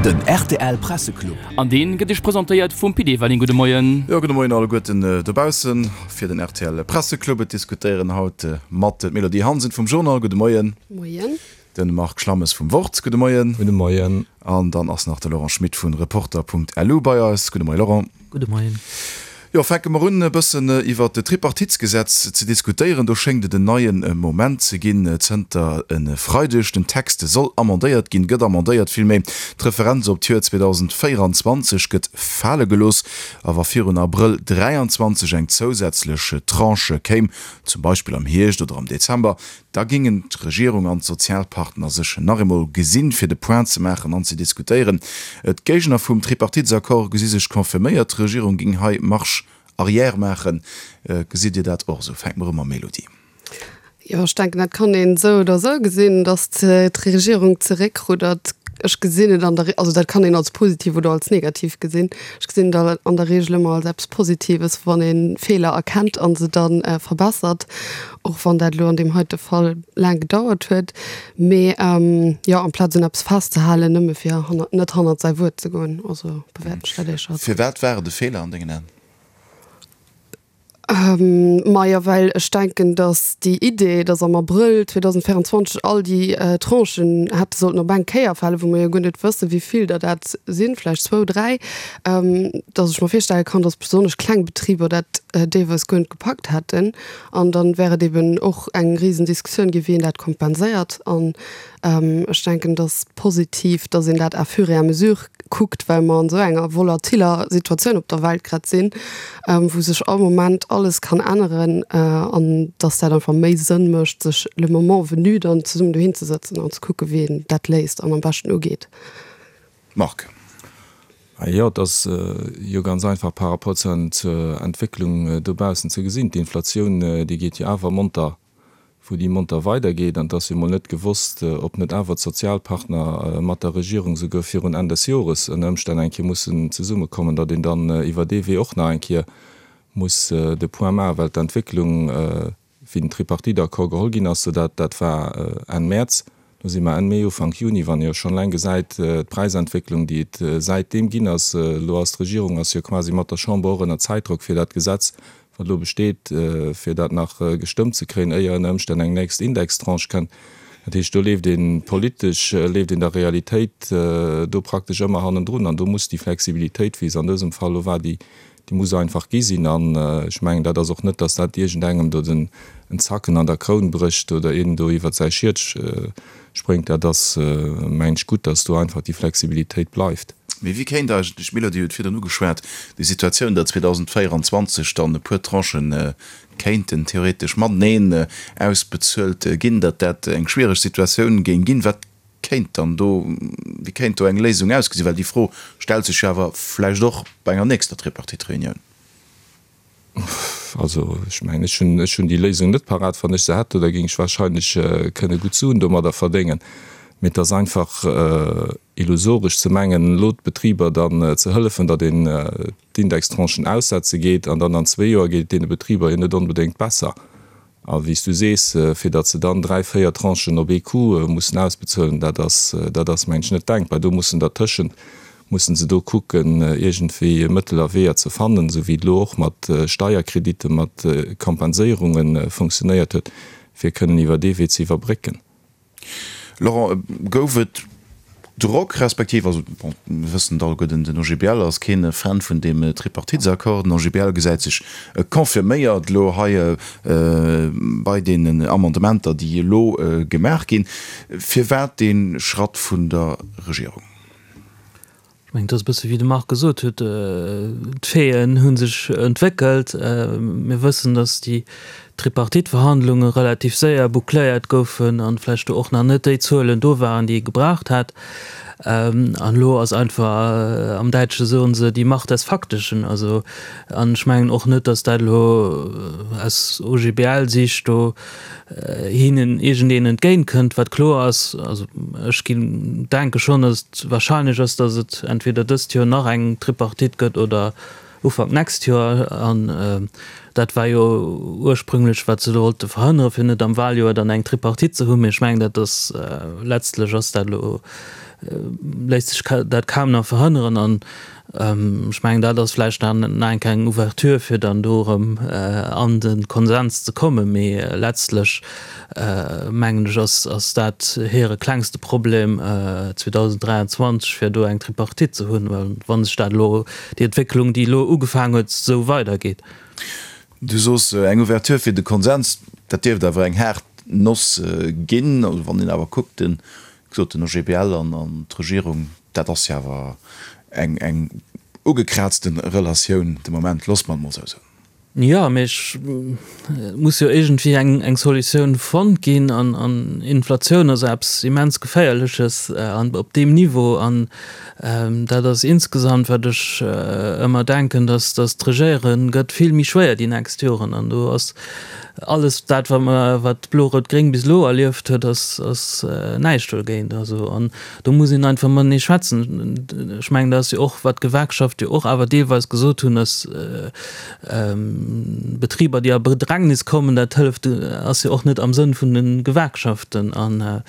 Den rtl Presseclub. An deen gëtt iech presentéiert vum Pit Everling. Gudde Moien. Jo, gudde Moien alleguerten dobaussen fir den rtl Presseclub. Et diskutéieren haut mat d'Mélodie Hansen vum Journal. Gudde Moien. Moien. Den Marc Schlammes vum Wort. Gudde Moien. Gudde Moien. An dann ass nach de Laurent Schmit vun Reporter.lu bei eis. Gudde Moien Laurent. Gudde Moien. Jo, fänke mer un e bëssen iwwert d'Tripartitsgesetz ze diskutéieren. Do schéngt et en neie Moment ze ginn zënter e Freideg. Den Text soll amendéiert ginn, gëtt amendéiert villméi. D'Referenz op d'Joer 2024 gëtt fale gelooss. A wa virun Abrëll 23 eng zousätzlech Tranche kéim, zum Beispill am Hierscht oder am Dezember, Da géingen d'Regierung an d'Sozialpartner sech nach eemol gesinn, fir de Point ze maachen an ze diskutéieren. D'Géigner vum Tripartitesaccord gesi sech confirméiert, d'Regierung géing hei Marche arrière maachen. Gesitt Dir dat och esou? Fänke mer u mam Mélodie. Jo, ech denken, dat kann een esou oder esou gesinn, datt d'Regierung zeréckruddert. Ech gesinn et an der, also dat kann een als positiv oder als negativ gesinn. Ech gesinn et an der Regel ëmmer als eppes Positives, wann ee Feeler erkennt a se da verbessert. Och wann dat elo an deem heite Fall laang gedauert huet. Mee jo, amplaz un eppes festzehalen, nëmme fir hannert, net hannert säi Wuert ze goen. Also bewäerten ech dat éischer als. Firwat war et e Feeler an dengen Aen? Majo, well ech denken, datt déi Idee, datt am Abrëll 2024 all déi Tranchen hätte sollten op eng Kéier falen, wou mer jo guer net wëssen, wéi vill der dat sinn, vläicht zwou, dräi, datt ech mer virstelle kann, datt besonnesch kleng Betriber dat deelweis guer net gepackt hätten. An dann wär et eben och eng risen Diskussioun ginn, wéi een dat kompenséiert. An ech denken, et ass positiv, dass een dat à fur et à mesure kuckt, well mer an esou enger volatiller Situatioun op der Welt grad sinn, wou sech all Moment alles kann änneren, an dass dat einfach méi Sënn mécht, sech le moment venu dann zesummen dohinzesëtzen an ze kucken, wéi een dat léist an am beschten ugeet. Marc. Jo, et ass jo ganz einfach par rapport zur Entwécklung dobaussen ze gesinn. D'Inflatioun, déi geet jo awer monter, wou déi monter weidergeet. An et ass jo mol net gewosst, ob net awer d'Sozialpartner mat der Regierung souguer virun Enn des Jores ënner Ëmstänn eng Kéier mussen zesummekommen, datt een dann iwwer dee Wee och nach eng Kéier muss de Point maachen, well d'Entwécklung, wéi den Tripartite-Accord geholl ginn ass, dat dat war Enn Mäerz, do si mer Enn Mee, Ufank Juni, wann ee jo schonn eleng gesäit, d'Präisentwécklung, déi et säitdeem ginn ass. Elo ass d'Regierung ass jo quasi mat der Chamber och ënner Zäitdrock, fir dat Gesetz, wat elo besteet, fir dat nach gestëmmt ze kréien, éier ënner Ëmstänn eng nächst Indextranche kënnt. Dat heescht, do leeft ee politesch, leeft een der Realitéit do praktesch ëmmer hannendrun an do muss déi Flexibilitéit, wéi se an dësem Fall elo war, déi Déi muss einfach gi sinn. An ech mengen, dat ass och net, datt dat iergendengem do den en Zacken an der Kroun brécht oder een do iwwert säi Schiet spréngt. Dat ass, mengen ech, gutt, datt do einfach déi Flexibilitéit bleift. Mee wéi kéint eigentlech, d'Mélodie huet virdrun ugeschwat, déi Situatioun, datt 2024 dann e puer Tranchen kéinten theoretesch mateneen ausbezuelt ginn, datt dat eng schwiereg Situatioun géing ginn? Wat kéint dann do, wéi kéint do eng Léisung ausgesinn? Well déi Fro stellt sech jo awer vläicht och bei enger nächster Tripartite-Reunioun. Also ech mengen, ech hunn, ech hunn déi Léisung net parat. Wann ech se hätt, da géing ech wahrscheinlech kënne gutt Suen domadder verdéngen. Mee et ass einfach illusoresch ze mengen, elo d'Betriber dann ze hëllefen, datt een d'Indextranchen aussetze geet an dann an zwee Joer geet et deene Betriber jo net onbedéngt besser. A wéi s du sees, fir datt se dann dräi, véier Tranchen op ee Coup mussen ausbezuelen, dat ass, dat ass mengen ech net denkbar. Do mussen dertëschent, mussen se do kucken, iergendwéi Mëttel a Weeër ze fannen, esou wéi et elo och mat Steierkreditte, mat Kompenséierunge funktionéiert huet, fir kënnen iwwer dee Wee ze iwwerbrécken. Laurent, gouf et Drock, respektiv, also bon, mir wëssen et alleguerten, den OGBL ass keen Fan vun deem Tripartitesaccord. Den OGBL gesäit sech confirméiert elo hei bei deenen Amendementer, déi elo gemaach ginn. Firwat dee Schratt vun der Regierung? Ech mengen, et ass e bësse wéi de Marc gesot huet, d'Faiten hu sech entwéckelt. Mir wëssen, datt déi Tripartite-Verhandlunge relativ séier boucléiert goufen an vläicht do och nach net déi Zuelen do waren, déi ee gebraucht hätt. An elo ass einfach, am Däitsche soen se, die Macht des Faktischen. Also, an ech mengen och net, datt dat elo aus OGBL-Sicht do hinnen iergendeen entgéint kënnt. Wat kloer ass, also ech ginn, denke schonn, datt et wahrscheinlech ass, datt et entweder dëst Joer nach eng Tripartite gëtt oder Ufank d'nächst Joer. An dat war jo ursprünglech, wat se do wollte verhënneren, fir net am Wahljoer dann eng Tripartite ze hunn. Mee ech mengen, dat ass, letztlech ass dat elo. léisst sech dat kaum nach verhënneren. An ech mengen, dat ass vläicht nach eng kleng Ouverture, fir dann do erëm an de Konsens ze kommen. Mee letztlech, mengen ech, ass dat hire klengste Problem 2023, fir do eng Tripartite ze hunn, well wa sech dat elo, déi Entwécklung, déi elo ugefaangen huet, esou weidergeet. Du soos eng Ouverture fir de Konsens, dat dierft awer eng haart Noss ginn. Also wann een awer kuckt, den, wéi gesot, den OGBL an d'Regierung, dat ass jo awer eng, eng ugekraazte Relatioun de Moment, loosse mer et mol esou soen. Jo, mee et muss jo iergendwéi eng, eng Solutioun fonnt ginn an, an Inflatioun ass eppes immens Geféierleches an op deem Niveau. An dat ass insgesamt, wat ech ëmmer denken, dass, dass d'Regéiere gëtt vill méi schwéier déi nächst Joren. An do ass alles dat, wat mer, wat Blo-Rout-Gréng bis elo erlieft huet, ass, ass näischt dogéint. Also an Do muss een einfach matenee schwätzen. Ech mengen, dat ass jo och, wat d'Gewerkschafte jo och awer deelweis gesot hunn, dass Betriber, déi a Bedrängnis kommen, dat hëlleft, ass jo och net am Sënn vun de Gewerkschaften. An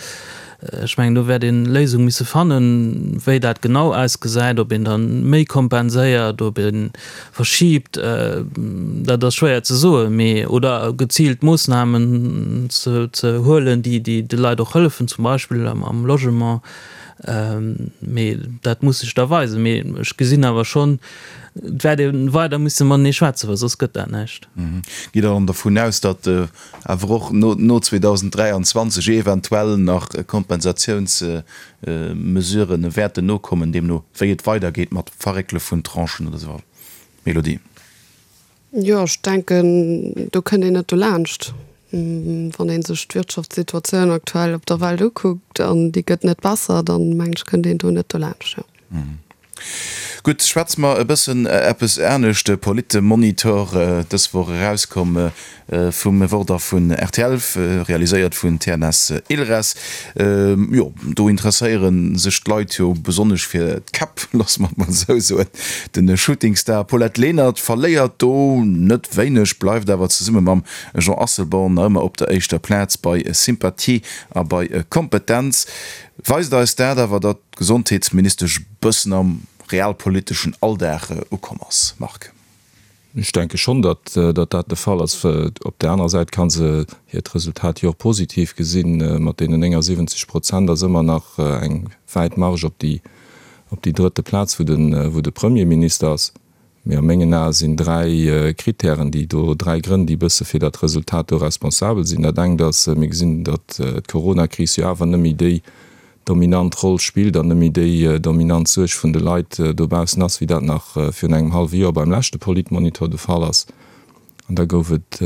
ech mengen, do wäert ee Léisung misse fannen. Wéi dat genau ausgesäit, ob een da méi kompenséiert, ob ee verschiibt, dat ass schwéier ze soen, mee oder geziilt Moossnamen ze huelen, déi de Leit och hëllefen, zum Beispill am Logement. Mee dat muss sech da weisen. Mee ech gesinn awer schonn, et wäert ee weider musse matenee schwätzen, well soss gëtt dat näischt. Gitt Der dann dervun aus, datt awer och no 2023 eventuell nach Kompensatiounsmesurë wäerten nokommen, deemno wéi et weidergeet mat Verréckele vun Tranchen oder esou? Mélodie. Jo, ech denken, do kënnt een net dolaanscht. Wann ee sech d'Wirtschaftssituatioun aktuell op der Welt ukuckt, an déi gëtt net besser, dann mengen ech, kënnt een do net dolaanscht, jo. Gutt, schwätze mer e bëssen eppes anescht. De Politmonitor, dës Woch erauskomm vum Wort a vun rtl, realiséiert vun TNS Ilres. Jo, do interesséiere sech d'Leit jo besonnesch fir d'Käpp, loosse mer et mol esou soen. De Shootingstar Paulette Lenert verléiert do net wéineg, bleift awer zesumme mam Jean Asselborn nach ëmmer op der éischter Plaz bei Sympathie a bei Kompetenz. Weist eis dat awer, datt d'Gesondheetsministesch bëssen am realpoliteschen Alldag ukomm ass, Marc? Ech denke schonn, datt dat de Fall ass. Op där anerer Säit ka se hiert Resultat jo och positiv gesinn. Mat deenen 79 Prozent ass ëmmer nach eng wäit Marge op déi op déi drëtte Plaz, wou de wou de Premierminister ass. Mee a mengen Ae sinn dräi Kritären, déi do, dräi Grënn, déi e bësse fir dat Resultat do responsabel sinn. Dat engt ass, mir gesinn, datt d'Coronakris jo awer net méi déi dominant Roll spillt an net méi déi dominant Suerg vun de Leit dobaussen ass, wéi dat nach virun engem hallwe Joer beim leschte Politmonitor de Fall ass. An da gouf et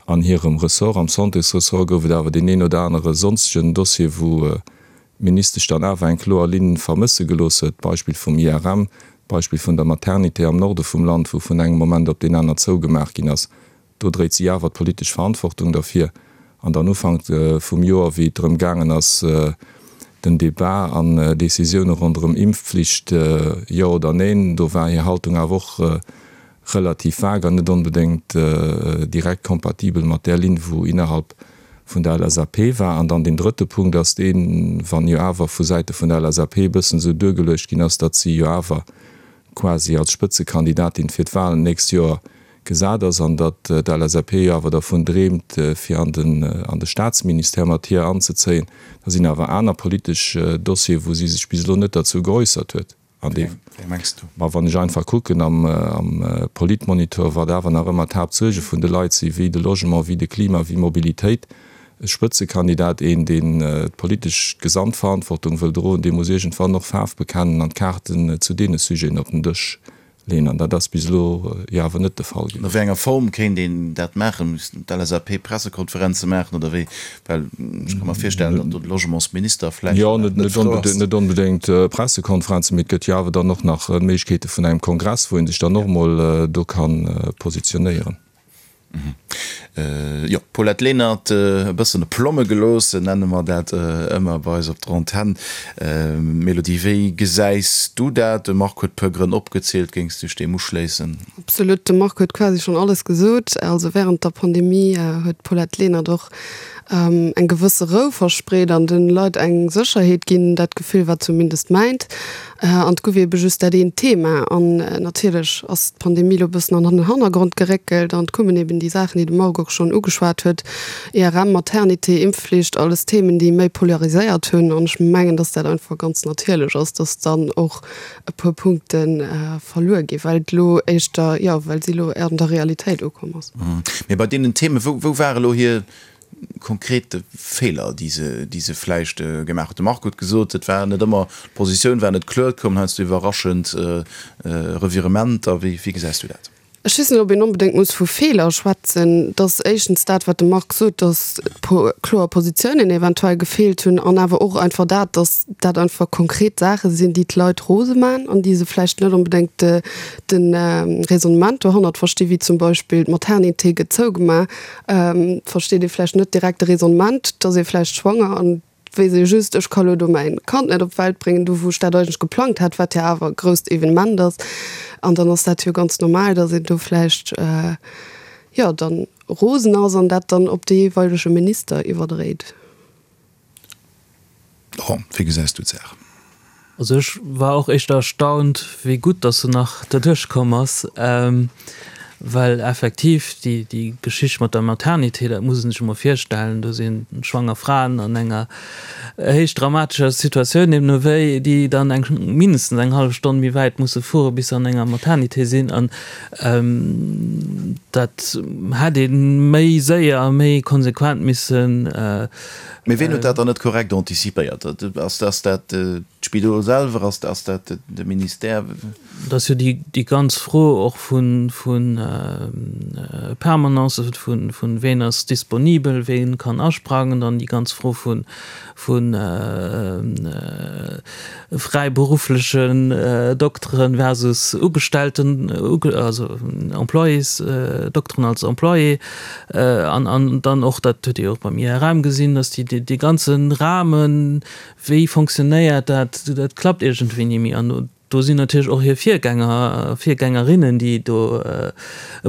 an hirem Ressort, am Santésressort, gouf et awer deen een oder anere sonstegen Dossier, wou d'Ministesch dann awer eng kloer Linn vermësse gelooss huet, d'Beispill vum IRM, d'Beispill vun der Maternité am Norde vum Land, wou vun engem Moment op deen aner zougemaach ginn ass. Do dréit si awer d'politesch Verantwortung derfir. An dann Ufank vum Joer, wéi et drëm gaangen ass, den Debat an Decisioune ronderëm Impfpflicht, jo oder neen, do war hir Haltung awer och relativ vag an net onbedéngt direkt kompatibel mat där Linn, wou innerhalb vun der LSAP war. An dann deen drëtte Punkt ass deen, wann jo awer vu Säite vun der LSAP e bëssen esou duergeluecht ginn ass, datt si jo awer quasi als Spëtzekandidatin fir d'Wahlen d'nächst Joer gesat ass an datt d'LSAP jo awer dervun dreemt, fir an den an de Staatsministère mat hir anzezéien. Da sinn awer aner politesch Dossieren, wou si sech bis elo net derzou geäussert huet. An dee, Wéi mengs du? Ma wann ech einfach kucken am am Politmonitor, wat awer nach ëmmer d'Haaptsuerge vun de Leit sinn, wéi de Logement, wéi de Klima, wéi Mobilitéit, e Spëtzekandidat, een, deen d'politesch Gesamtverantwortung wëll droen, dee muss iergendwann och Faarf bekennen an d'Kaarten zu deene Sujeten op den Dësch Leen, an dat ass bis elo jo awer net de Fall A wéi enger Form kéint een dat maachen? Missten d'LSAP Pressekonferenze maachen oder wéi? Well ech ka mer virstellen, datt do de Logementsminister vläicht Jo, net frou ass. Net onbedéngt Pressekonferenzen, mee et gëtt jo awer dann och nach d'Méiglechkeete vun engem Kongress, wou ee sech dann och emol do ka positionéieren. Jo, Paulette Lenert, e bëssen e Plomme gelooss, nenne mer dat ëmmer bei eis op der Antenn. Mélodie, wéi gesäis du dat? De Marc huet e puer Grënn opgezielt, géings du dech deem uschléissen? Absolut, de Marc huet quasi schonn alles gesot. Also wärend der Pandemie huet d'Paulette Lenert och eng gewësse Rou verspreet an de Leit eng Sécherheet ginn, dat Gefill war zumindest mäint. An et gouf eebe just dat eent Thema. An natierlech ass d'Pandemie elo e bëssen an den Hannergrond geréckelt an et koumen eeben déi Saachen, déi de Marc och schonn ugeschwat huet, IRM, Maternité, Impfflicht, alles Themen, déi méi polariséiert hunn. An ech mengen, dass dat einfach ganz natierlech ass, dass dann och e puer Punkte verluer ginn, well et elo éischter, jo, well si elo an der Realitéit ukomm ass. Mee bei deenen Themen, wou, wou ware elo hir konkret Feeler, déi se, déi se vläicht gemaach huet? De Marc huet gesot, et war net ëmmer, d'Positioun war net kloer, et koumen heiansdo iwwerraschend Revirementer. Wéi, wéi gesäis du dat? Ech weess net, ob een onbedéngt muss vu Feeler schwätzen. Et ass éischtens dat, wat de Marc sot, datt kloer Positiounen eventuell gefeelt hunn an awer och einfach dat, datt dat einfach konkret Saache sinn, déi d'Leit rose man an déi se vläicht net onbedéngt de Raisonnement dohannert verstinn, wéi zum Beispill d'Maternité gëtt zougemaach, versteet ee vläicht net direkt de Raisonnement, et ass ee vläicht schwanger an weess ee just, ech ka lo do mäin Kand net op d'Welt bréngen, do wou ech dat eigentlech geplangt hat, wat jo awer e grousst Evenement ass. An dann ass dat jo ganz normal, datt een do vläicht, jo, dann rosen ass an dat dann op de jeeweilege Minister iwwerdréit. Laurent, wéi gesäis du d'Saach? Also ech war och éischter erstaunt, wéi gutt dass se nach derduerch komm ass, well effektiv déi déi Geschicht mat der Maternité, dat muss ee sech emol virstellen, do si schwanger Fraen an enger héich dramatescher Situatioun, deemno wéi, déi dann eng mindestens eng hallef Stonn méi wäit musse fuere bis se an enger Maternité sinn. An dat hätt ee méi séier a méi konsequent missen Mee ween huet dat dann net korrekt anticipéiert? Ass dat d'Spidol selwer? Ass dat de Ministère? Et ass jo déi ganz Fro och vu Permanencen, vu ween ass disponibel, wee kann asprangen, dann déi ganz Fro vu fräiberufflechen Dokteren versus Ugestellten, also Employés, Dokteren als Employé. An an dann och, dat huet Dir jo och beim IRM gesinn, dass déi dee ganze Rahmen, wéi fonctionnéiert dat, dat klappt iergendwéi ni méi. An do sinn natierlech och hir Virgänger a Virgängerinnen, déi do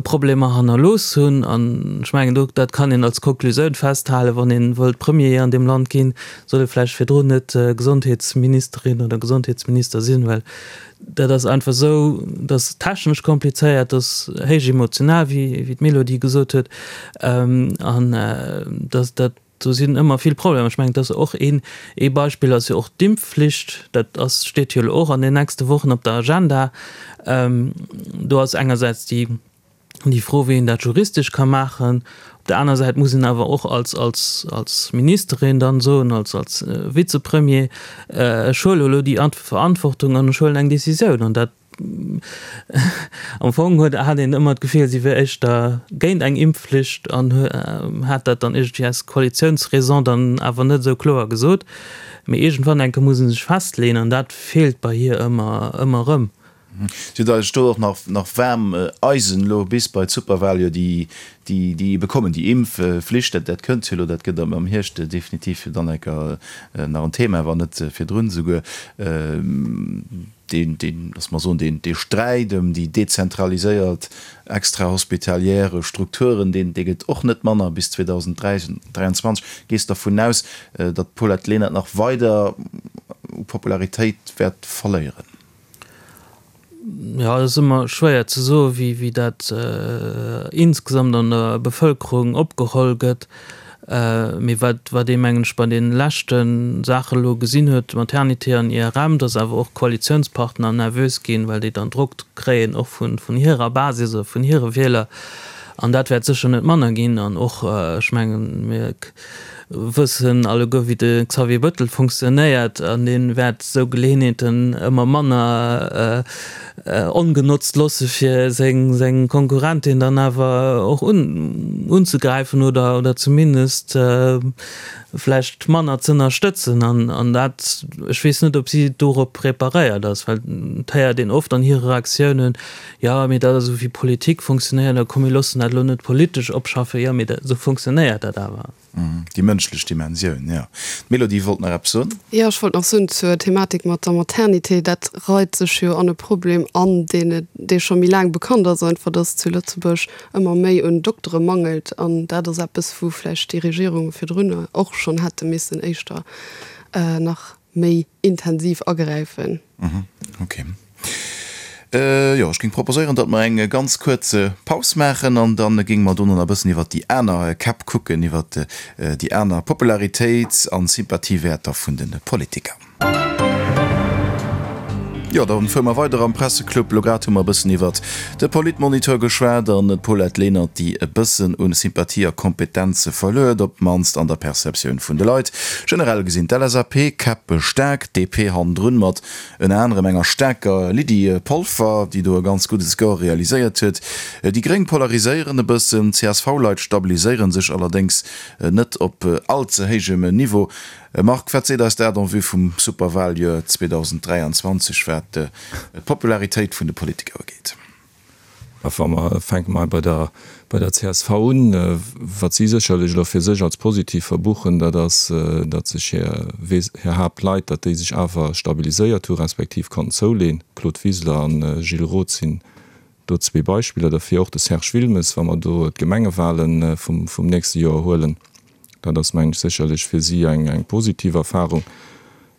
Problemer hannerlooss hunn. An ech mengen, do dat kann een als Konklusioun festhalen, wann ee wëllt Premier an deem Land ginn, soll ee vläicht virdrun net Gesondheetsministerin oder Gesondheetsminister sinn, well Dat ass einfach esou, dat ass technesch komplizéiert, dat ass héich emotional, wéi d'Mélodie gesot huet, an dat, dat, do sinn ëmmer vill Problemer. Ech mengen, dat ass och een, ee Beispill ass jo och d'Impfflicht, dat ass, steet jo elo och an den nächste Wochen op der Agenda. Do ass engersäits déi, déi Fro, wéi een dat juristesch ka maachen. Op der aner Säit muss een awer och als, als, als Ministerin dann soen, als, als Vizepremier, ech huele elo déi Verantwortung an ech huelen eng Décisioun. An dat, am Fong huet, hat een ëmmer d'Gefill, si wier éischter géint eng Impfflicht an hat dat dann iergendwéi aus Koalitiounsraison dann awer net esou kloer gesot. Mee iergendwann enke muss ee sech festleeën an dat feelt bei hir ëmmer, ëmmer erëm. Si huet eigentlech do och nach nach waarm Eisen elo bis bei d'Superwahl, jo déi déi déi ebe kommen, déi Impfflicht, dat dat kënnt jo elo, dat gëtt am am Hierscht definitiv jo dann enker nach en Thema, wann net virdrun esouguer. Deen deen, lass mer soen, deen dee Sträit ëm déi dezentraliséiert extrahospitalière Strukturen, deen dee gëtt och net manner bis 2023. Gees dervun aus, datt d'Paulette Lenert nach weider u Popularitéit wäert verléieren? Jo, et ass ëmmer schwéier ze soen, wéi, wéi dat insgesamt an der Bevëlkerung opgeholl gëtt. Mee wat, wat ee mengen ech bei deene leschte Saache elo gesinn huet, Maternité an IRM, datt awer och Koalitiounspartner nervös ginn, well déi dann Drock kréien och vun, vun hirer Basis oder vun hire Wieler. An dat wäert sécher net manner ginn. An och, ech mengen, mir. wëssen alleguer wéi de Xavier Bëttel funktionéiert an dee wäert esou Geleeënheeten ëmmer manner ongenotzt loosse fir seng Konkurrentin dann awer och unzegräifen oder zumindest vläicht manner z'ënnerstëtzen. An dat, ech weess net, ob si dorop preparéiert ass, well et héiert een oft an hire Reaktiounen, jo, mee dat ass esou wéi Politik funktionéiert a komm mir loossen dat elo net politesch opschaffen. Jo, mee esou funktionéiert dat awer. Déi mënschlech Dimensioun, jo. D'Mélodie wollt nach eppes soen. Jo, ech wollt nach soen zur Thematik mat der Maternité, dat reit sech jo an e Problem an, deen et, dee scho méi laang bekannt ass, einfach, dass zu Lëtzebuerg ëmmer méi un Doktere mangelt. An dat ass eppes, wou vläicht déi Regierunge virdrun och schonn hätte missen éischter nach méi intensiv agräifen. Ok. Jo, ech géing proposéieren, datt mer eng ganz kuerz Paus maachen an da géinge mer dono nach e bëssen iwwert déi aner Käpp kucken, iwwert déi aner Popularitéits an Sympathiewäerter vun de Politiker. Jo, da fuere mer weider am Presseclub. Elo grad hu mer e bëssen iwwert de Politmonitor geschwat an d'Paulette Lenert, déi e bëssen u Sympathie a Kompetenze verluer, op d'mannst an der Perceptioun vun de Leit. Generell gesinn d'LSAP-Käpp staark, d'DP hannendrun mat Ënner anerem enger staarker Lydie Polfer, déi do e ganz gudde Score realiséiert huet. Déi Gréng polariséieren e bëssen, d'CSV-Leit stabiliséiere sech allerdéngs net op all ze héijem Niveau. Marc, wat seet eis dat en vue vum Superwaljoer 2023, wat d'Popularitéit vun de Politiker ugeet? A wa mer, fänke mer bei der, bei der csv un, wat si sécherlech elo fir sech als positiv verbuchen, dat ass, datt sech hir, hir Haaptleit, datt déi sech awer stabiliséiert hu respektiv konnten zouleen. Claude Wiseler an Gilles Roth sinn do zwee Beispiller derfir. Och de Serge Wilmes, wa mer do d'Gemengewahlen vum, vum nächste Joer huelen. Dat ass, mengen ech, sécherlech fir si eng, eng positiv Erfahrung.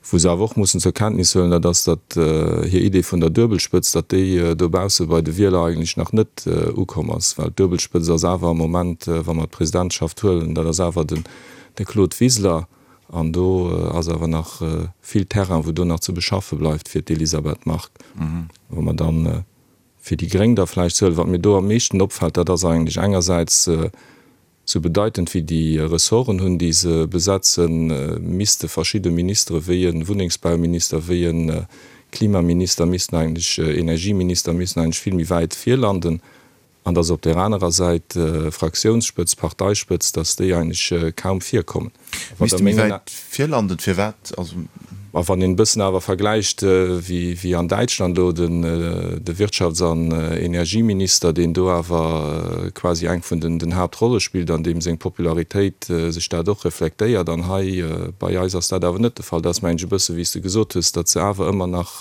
Wou se awer och mussen zur Kenntnis huelen, dat ass, datt hir Idee vun der Duebelspëtz, datt déi dobausse bei de Wieler eigentlech nach net ukomm ass. Well d'Duebelspëtz ass awer am Moment, wa mer d'Presidentschaft huelen, dat ass awer den de Claude Wiseler. An do ass awer nach vill Terrain, wou do nach ze beschaffe bleift fir d'Elisabeth Margue. Wa mer dann fir déi Gréng da vläicht huelen, wat mir do am meeschten opfält, dat ass eigentlech engersäits, Sou bedeitend wéi déi Ressorten hunn, déi se besetzen, misste verschidde Ministere wéi e Wunnengsbauminister, wéi e Klimaminister missten eigentlech, Energieminister missten eigentlech vill méi wäit vir landen. An datt op där anerer Säit Fraktiounsspëtzt, Parteispëtzt, datt déi eigentlech kaum virkommen. Misste méi wäit virlanden, firwat? Also. Ma wann een e bëssen awer vergläicht, wéi an Däitschland elo de Wirtschafts an Energieminister, deen do awer quasi eng vun den Haaptrolle spillt an deem seng Popularitéit sech dat och reflektéiert, an hei bei eis ass dat awer net de Fall. Dat ass, mengen ech, e bësse wéi s de gesot hues, datt se awer ëmmer nach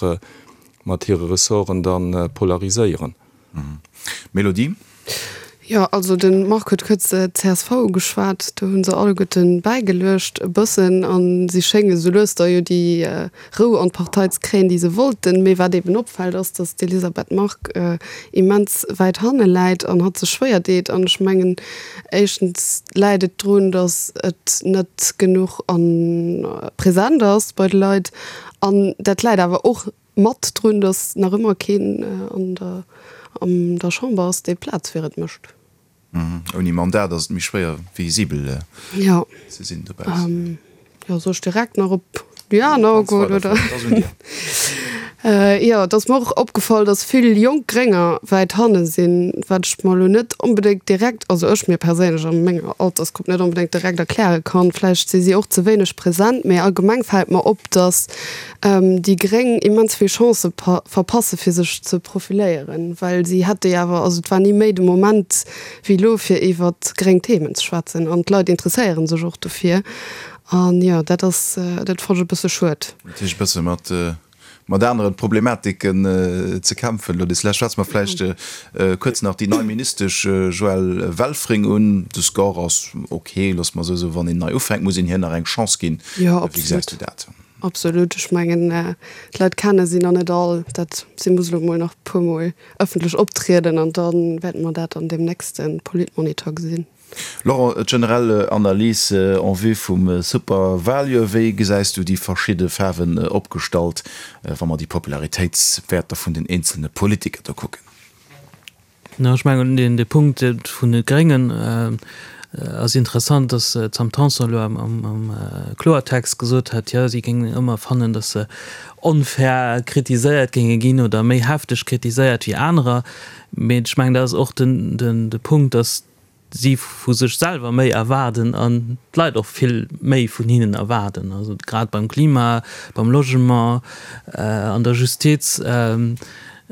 mat hire Ressorten da polariséieren. Mélodie? Jo, also de Marc huet kuerz d'CSV ugeschwat. Do hu se alleguerten bäigeluecht e bëssen a si schénge sou lues da jo déi Rou an d'Partei ze kréien, déi se wollten. Mee wat eben opfält, ass, datt d'Elisabeth Margue immens wäit hanne läit an hatt sech schwéier deet. An ech mengen, éischtens läit et drun, datt et net genuch a present ass bei de Leit. An dat läit awer och Mat drun, datt nach ëmmer keen an der an der Chamber ass, dee Plaz fir et mécht. Ouni Mandat ass et méi schwéier visibel ze sinn dobaussen. Jo, soll ech direkt nach op déi aner agoen, oder? Et ass un dir. Jo, et ass mer och opgefall, datt vill jonk Grénger wäit hanne sinn, wat ech mer elo net onbedéngt direkt, also ech mir perséinlech a menger Altersgrupp net onbedéngt direkt erkläre kann. Vläicht si si och ze wéineg present, mee allgemeng fält mer op, datt déi Gréng immens vill Chancë verpasse fir sech ze profiléieren, well si hätte jo awer, also et war ni méi de Moment wéi elo fir iwwer gréng Themen ze schwätzen an d'Leit interesséiere sech och dofir an jo dat ass, dat fonnt ech e bësse schued. Natierlech e bësse mat mat anere Problematiken ze kämpfen elo. Des Lescht schwätze mer vläicht kuerz nach déi nei Ministesch Joëlle Welfring un. De Score ass ok, loosse mer esou soen. Wann een nei ufänkt, muss een hir nach eng Chance ginn. Wéi gesäis du dat? Absolut, ech mengen d'Leit kenne si nach net all. Dat si muss elo mol nach e puer mol ëffentlech optrieden an da wäerte mer dat an deem nächste Politmonitor gesinn. Laurent, d'generell Analys en vue vum Superwaljoer, wéi gesäis du déi verschidde Faarwen opgestallt, wa mer déi Popularitéitswäerter vun den eenzelne Politiker do kucken? Ech mengen, deen de Punkt vun de Gréngen. Ass interessant, datt d'Sam Tanson elo am Kloertext gesot hat, jo si géingen ëmmer fannen, datt se onfair kritiséiert géinge ginn oder méi hefteg kritiséiert wéi anerer. Mee ech mengen, dat ass och de Punkt, datt si vu sech selwer méi erwaarden an d'Leit och vill méi vun hinnen erwaarden. Also grad beim Klima, beim Logement, an der Justiz.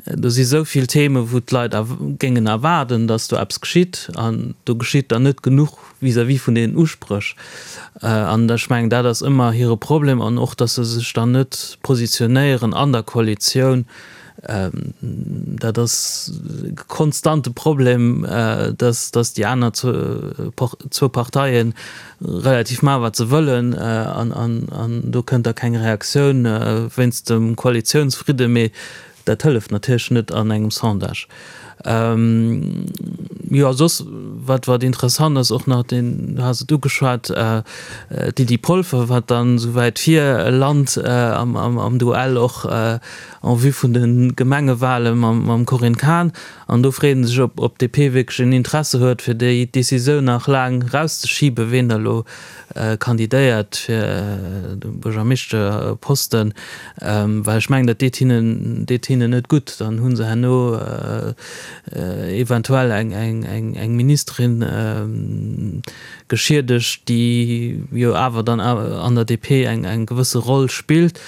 Do si sou vill Themen, wou d'Leit géingen erwaarden, datt do eppes geschitt, an do geschitt dann net genuch vis-à-vis vun deenen Uspréch. An ech mengen, dat ass ëmmer hire Problem an och, datt se sech dann net positionéieren an der Koalitioun. Dat ass e konstante Problem, datt déi aner zwou Parteien relativ maachen, wat se wëllen, an do kënnt da keng Reaktioun wéinst dem Koalitiounsfridde. Mee Dat hëlleft natierlech net an engem Sondage. Jo, soss, wat, wat interessant ass och nach, deen, du has et ugeschwat, d'Lydie Polfer, wat dann esou wäit vir lant am, am, am Duell och en vue vun de Gemengewale mam, mam Corinne Cahen. An do freet ee sech, ob, ob d'DP wierklech en Interesse huet, fir déi Decisioun nach laang erauszeschiben, ween da elo kandidéiert fir de Buergermeeschterposten, well ech mengen, dat deet hinnen, deet hinnen net gutt. Dann hu se herno eventuell eng, eng, eng, eng Ministerin geschiedegt, déi jo awer dann an der DP eng, eng gewësse Roll spillt.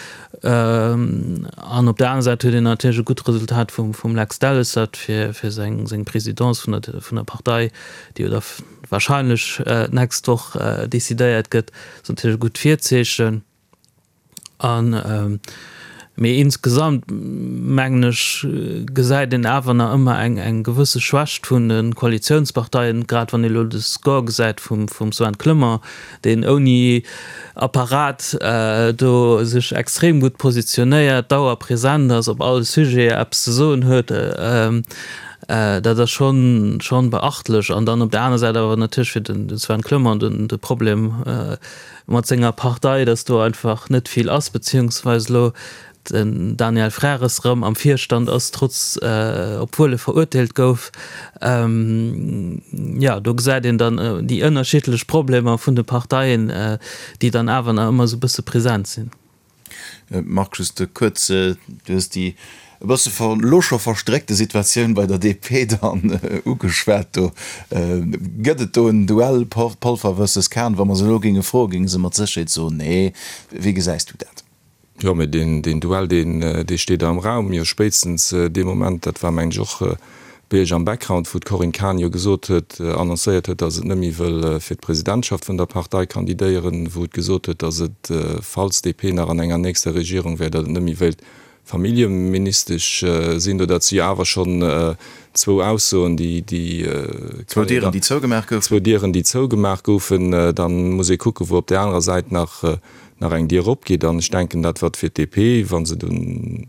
An op der anerer Säit huet een natierlech e gutt Resultat vum, vum Lex Delles, dat fir, fir seng, seng Présidence vun der, vun der Partei, déi jo da wahrscheinlech d'nächst Woch decidéiert gëtt, ass natierlech e gutt Virzeechen. An, mee insgesamt mengen ech, gesäit een awer nach ëmmer eng eng gewësse Schwächt vun de Koalitiounsparteien, grad wann ee elo de Score gesäit vum vum Sven Clement, deen ouni Apparat do sech extrem gutt positionéiert, dauerpresent ass, op all Sujet eppes ze soen huet. Dat ass schonn schonn beachtlech. An dann op der aner Säit awer natierlech fir den Sven Clement den de Problem mat senger Partei, datt do einfach net vill ass, beziehungsweise elo den Daniel Frères erëm am Virstand ass, trotz obwuel e verurteelt gouf. Jo, do gesäit een dann déi ënnerschiddlech Problemer vun de Parteien, déi dann awer nach ëmmer esou e bësse present sinn. Marc, just kuerz, du hues déi e bësse elo scho verstréckte Situatioun bei der DP dann ugeschwat. Do gëtt et do en Duell Polfer versus Kahn. Wa mer se elo géinge froen, géinge se mat Sécherheet soen, nee. Wéi gesäis du dat? Jo, mee deen Duell, dee steet am Raum. Jo, spéitstens dee Moment, dat war mengen ech och Bei Iech am Background, wou d'Corinne Cahen jo gesot huet, annoncéiert huet, datt et net méi wëll fir d'Presidentschaft vun der Partei kandidéieren, wou et gesot huet, datt et, falls DP nach an enger nächster Regierung wär, datt et net méi wéilt Familljeministesch sinn. Do dat si jo awer schonn zwou Aussoen, déi, déi. Zwou Dieren, déi zougemaach goufen. Zwou Dieren, déi zougemaach goufen. Da muss ee kucken, wou op där anerer Säit nach, nach eng Dier opgeet. An ech denken, dat wat fir d'DP, wa se dunn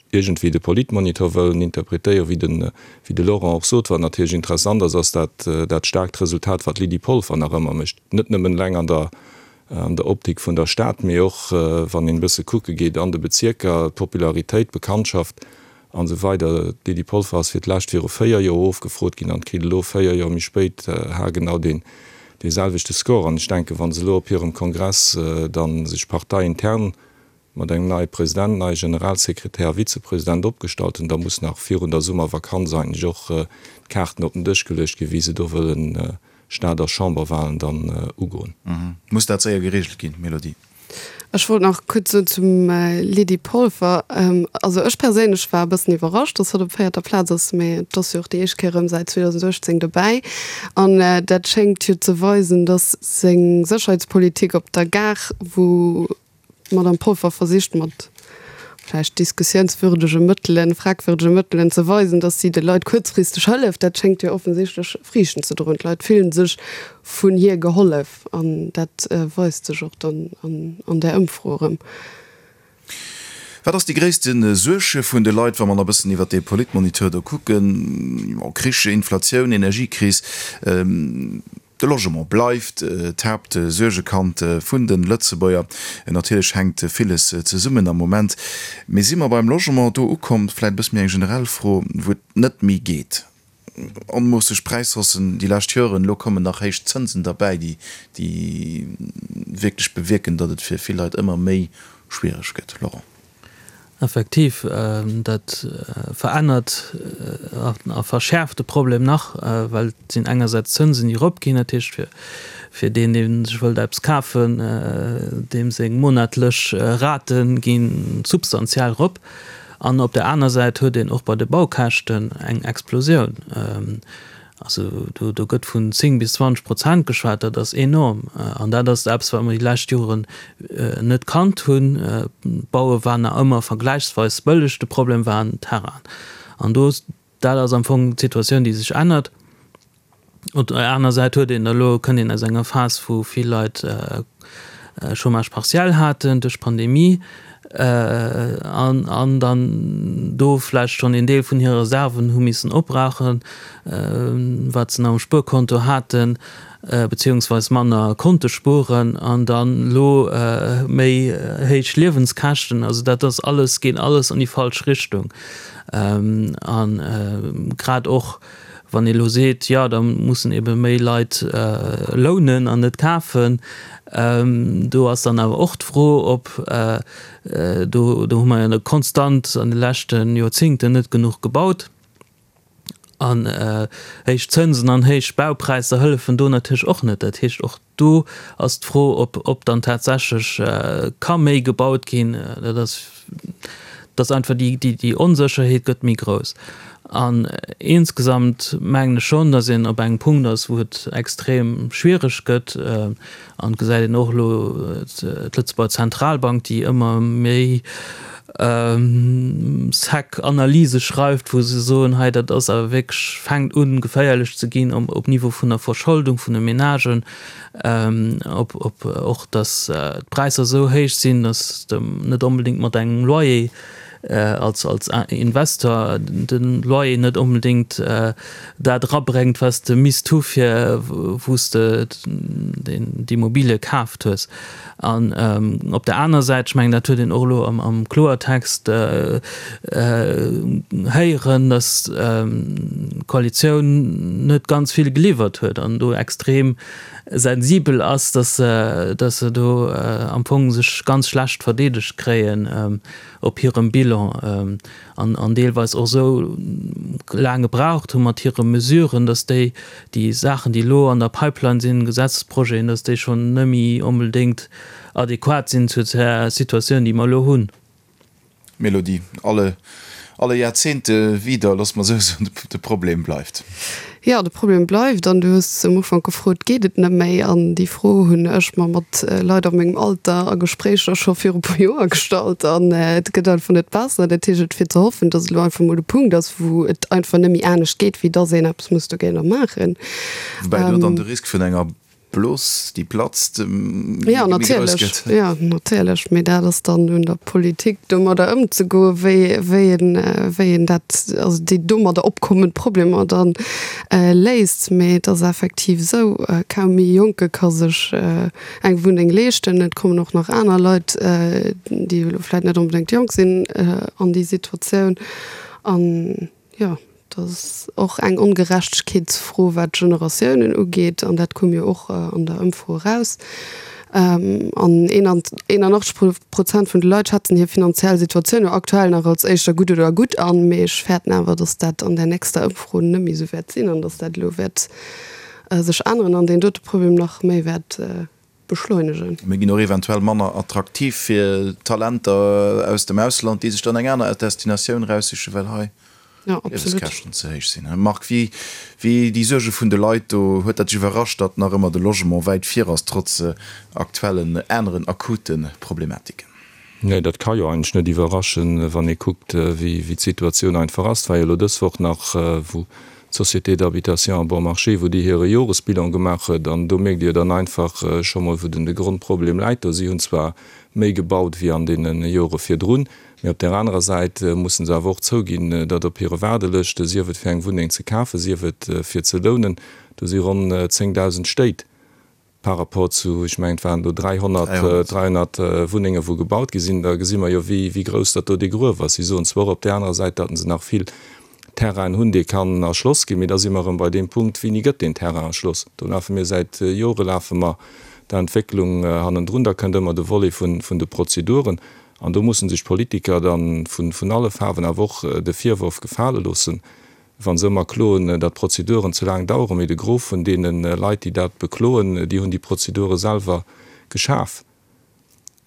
iergendwéi de Politmonitor wëllen interpretéieren, wéi de, wéi de Laurent och sot, wat natierlech interessant ass, ass dat, dat staarkt Resultat, wat d'Lydie Polfer nach ëmmer mécht, net nëmmen eleng an der, an der Optik vun der Stad, mee och, wann een e bësse kucke geet an de Bezierker, d'Popularitéit, d'Bekanntschaft an esou weider. D'Lydie Polfer ass fir d'lescht viru 4 Joer ofgefrot ginn an kritt elo 4 Joer méi spéit haargenau deen, dee selwechte Score. An ech denken, wa se elo op hirem Kongress dann sech parteiintern mat engem neie President, neie Generalsekretär a Vizepresident opgestallt hunn, da muss nach virun der Summervakanz eigentlech och d'Kaarten op den Dësch geluecht ginn, wéi se do wëllen Stad a Chamberwahlen dann ugoen. Muss dat séier geregelt ginn, Mélodie? Ech wollt nach kuerz soen zum Lydie Polfer, also ech perséinlech war e bëssen iwwerrascht, datt hatt op véierter Plaz ass, mee et ass jo och déi éischt Kéier erëm säit 2018 dobäi an dat schéngt jo ze weisen, datt seng Sécherheetspolitik op der Gare, wou D'Madame Polfer versicht mat vläicht diskussiounswürdege Mëttelen, fragwürdege Mëttelen ze weisen, datt si de Leit kuerzfristeg hëlleft. Dat schéngt jo offensichtlech Friichten ze droen. D'Leit fillen sech vun hir gehollef an dat weist sech och dann an där Ëmfro erëm. Wat ass déi gréisste Suerg vun de Leit, wa mer nach e bëssen iwwert dee Politmoniteur do kucken? Krich, Inflatioun, Energiekris. De Logement bleift d'Haaptsuergekand vun de Lëtzebuerger. Natierlech hänkt villes zesummen am Moment. Mee si mer beim Logement do ukomm, vläit e bësse méi eng generell Fro, wou et net méi geet? Onmoosseg Präishaussen déi lescht Joren, elo kommen nach héich Zënsen derbäi, déi déi wierklech bewierken, datt et fir vill Leit ëmmer méi schwiereg gëtt. Laurent. Effektiv, dat verännert a verschäerft de Problem nach, well et sinn engersäits d'Zënsen, déi eropginn, dat heescht fir fir deen, dee sech wëllt eppes kafen, deem seng monatlech Rate gi substantiell erop. An op der aner Säit huet een och bei de Baukäschten eng Explosioun. Also do do gëtt vun 10 bis 20 Prozent geschwat, dat ass enorm. An dat ass eppes, wat mer déi lescht Joren net kannt hunn. D'Baue war nach ëmmer vergläichsweis bëlleg, de Problem waren d'Terrainen. An do, dat ass am Fong d'Situatioun, déi sech ännert. Op der aner Säit huet een elo, kënnt een aus enger Phas, wou vill Leit Chômage partiel haten duerch d'Pandemie an an dann do vläicht schonn een Deel vun hire Reserven hu missen opbrauchen, wat se nach um Spuerkonto haten, beziehungsweis manner konnte spueren an dann elo méi héich Liewenskäschten. Also dat ass alles, geet alles an déi falsch Richtung. A grad och Wann ee elo seet, jo da mussen ebe méi Leit lounen an net kafen, do ass dann awer och d'Fro, ob, do do hu mer jo konstant an de leschte Joerzingten net genuch gebaut an héich Zënsen an héich Baupräisser hëllefen do natierlech och net. Dat heescht och Do ass d'Fro, ob ob dann tatsächlech ka méi gebaut ginn. Dat ass, dass einfach déi déi déi Onsécherheet gëtt méi grouss. An insgesamt mengen ech schonn, dass een op engem Punkt ass, wou et extrem schwiereg gëtt. An et gesäit een och elo d'Lëtzebuerger Zentralbank, déi ëmmer méi sec Analyse schreift, wou se soen, hei dat ass awer wierklech, fänkt un geféierlech ze ginn op Niveau vun der Verscholdung vun de Menagen, op op och datt d'Präisser esou héich sinn, datt de net onbedéngt mat engem Loyer als als Investor de Loyer net onbedéngt dat erabréngt, wat s de misst hu fir wou s de d'Immobilie kaaft hues. An op der aner Säit, ech mengen, dat huet een och elo am Kloertext héieren, datt d'Koalitioun net ganz vill geliwwert huet an do extrem sensibel ass, datt se do am Fong sech ganz schlecht verdeedegt kréien op hirem Bilan. An an deelweis och esou laang gebraucht hu mat hire Mesuren, datt déi, déi Saachen, déi elo an der Pipeline sinn, Gesetzesprojeten, datt déi schonn net méi onbedéngt adequat sinn zu der Situatioun, déi mer elo hunn. Mélodie, alle, alle Jahrzehnte wieder, loosse mer esou soen, de Problem bleift. Jo, de Problem bleift. An du hues um Ufank gefrot, Geet et net méi? An déi Fro hunn ech mer mat Leit a mengem Alter a Gespréicher scho viru puer Joer gestallt. An et gëtt einfach net besser. Dat heescht, et wier ze hoffen, datt elo einfach mol e Punkt ass, wou et einfach net méi anescht geet, wéi datt een eppes muss dogéinter maachen. Woubäi do dann de Risk vun enger Blos, déi platzt, méi grouss gëtt. Jo, natierlech. Mee dat ass dann un der Politik, domadder ëmzegoen, wéi, wéi een, wéi een dat, also déi domadder opkommend Problemer da léist. Mee et ass effektiv esou, kaum ee Jonke ka sech eng Wunneng leeschten. Et kommen och nach aner Leit, déi elo vläicht net onbedéngt jonk sinn, an déi Situatioun. An jo. Dat ass och eng Ongerechtegkeetsfro, wat d'Generatiounen ugeet, an dat koum jo och an der Ëmfro eraus. An 81 Prozent vun de Leit schätzen hir finanziell Situatioun jo aktuell nach als éischter gutt oder gutt an. Mee ech fäerten awer, datt dat an der nächster Ëmfro net méi esou wäert sinn an datt dat elo wäert sech änneren an deen dote Problem nach méi wäert beschleunegen. Mir ginn och eventuell manner attraktiv fir Talenter aus dem Ausland, déi sech dann eng aner Destinatioun eraussichen, well hei d'Liewenskäschten ze héich sinn. Marc, wéi wéi déi Suerge vun de Leit do, huet dat dech iwwerrascht, datt nach ëmmer de Logement wäit vir ass, trotz aktuellen aneren akute Problematiken? Nee, dat ka jo eigentlech net iwwerraschen, wann ee kuckt, wéi d'Situatioun einfach ass. Et war jo elo dës Woch nach, wou d'Société d'habitation à bon marché, wou déi hire Joresbilan gemaach huet, an do mierkt Dir dann einfach scho mol, wou den de Grondproblem läit do. Si hunn zwar méi gebaut wéi an deene Jore virdrun, mee op där anerer Säit mussen se awer och zouginn, datt op hire Waardelëschte, sief et fir eng Wunneng ze kafen, sief et fir ze lounen, do si ronn 10.000 Stéit Par rapport zu, ech mengen, et waren do 300, 300 Wunnenge wou gebaut gi sinn, da gesi mer jo wéi, wéi grouss datt do dee Gruef ass. Si soen zwar och op där anerer Säit, datt se nach vill. Terrainen hunn, dee kann erschloss ginn. Mee da si mer erëm bei deem Punkt, Wéini gëtt deen Terrain erschloss? Do lafe mir säit Jore lafe mer der Entwécklung hannendrun. Da kënnt ëmmer de Volet vun de Prozeduren. An do musse sech d'Politiker da vun alle Faarwen awer och de Virworf gefale loossen, wa se ëmmer kloen, datt d'Prozeduren ze laang daueren. Mee de Gros vun deene Leit, déi dat bekloen, déi hunn déi Prozedure selwer geschaf.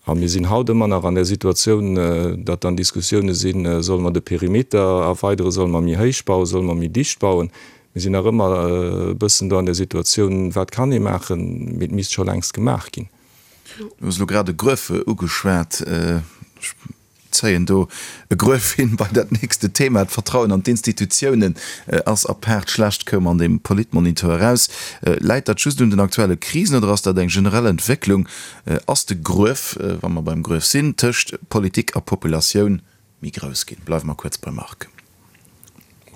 A mir sinn haut ëmmer nach an där Situatioun, datt dann Diskussioune sinn, Solle mer de Perimeter erweideren, solle mer méi héich bauen, solle mer méi dicht bauen? Mir sinn nach ëmmer e bëssen do an där Situatioun, wat kann ee maachen, mee et misst scho längst gemaach ginn. Du hues elo grad e Gruef ugeschwat. Ech zéien do e Gruef hin bei dat nächste Thema. D'Vertrauen an d'Institutiounen ass apaart schlecht, koum an deem Politmonitor eraus. Läit dat just un den aktuelle Krisen oder ass dat eng generell Entwécklung? Ass de Gruef, wa mer beim Gruef sinn, tëscht Politik a Populatioun méi grouss ginn? Bleiwe mer kuerz beim Marc.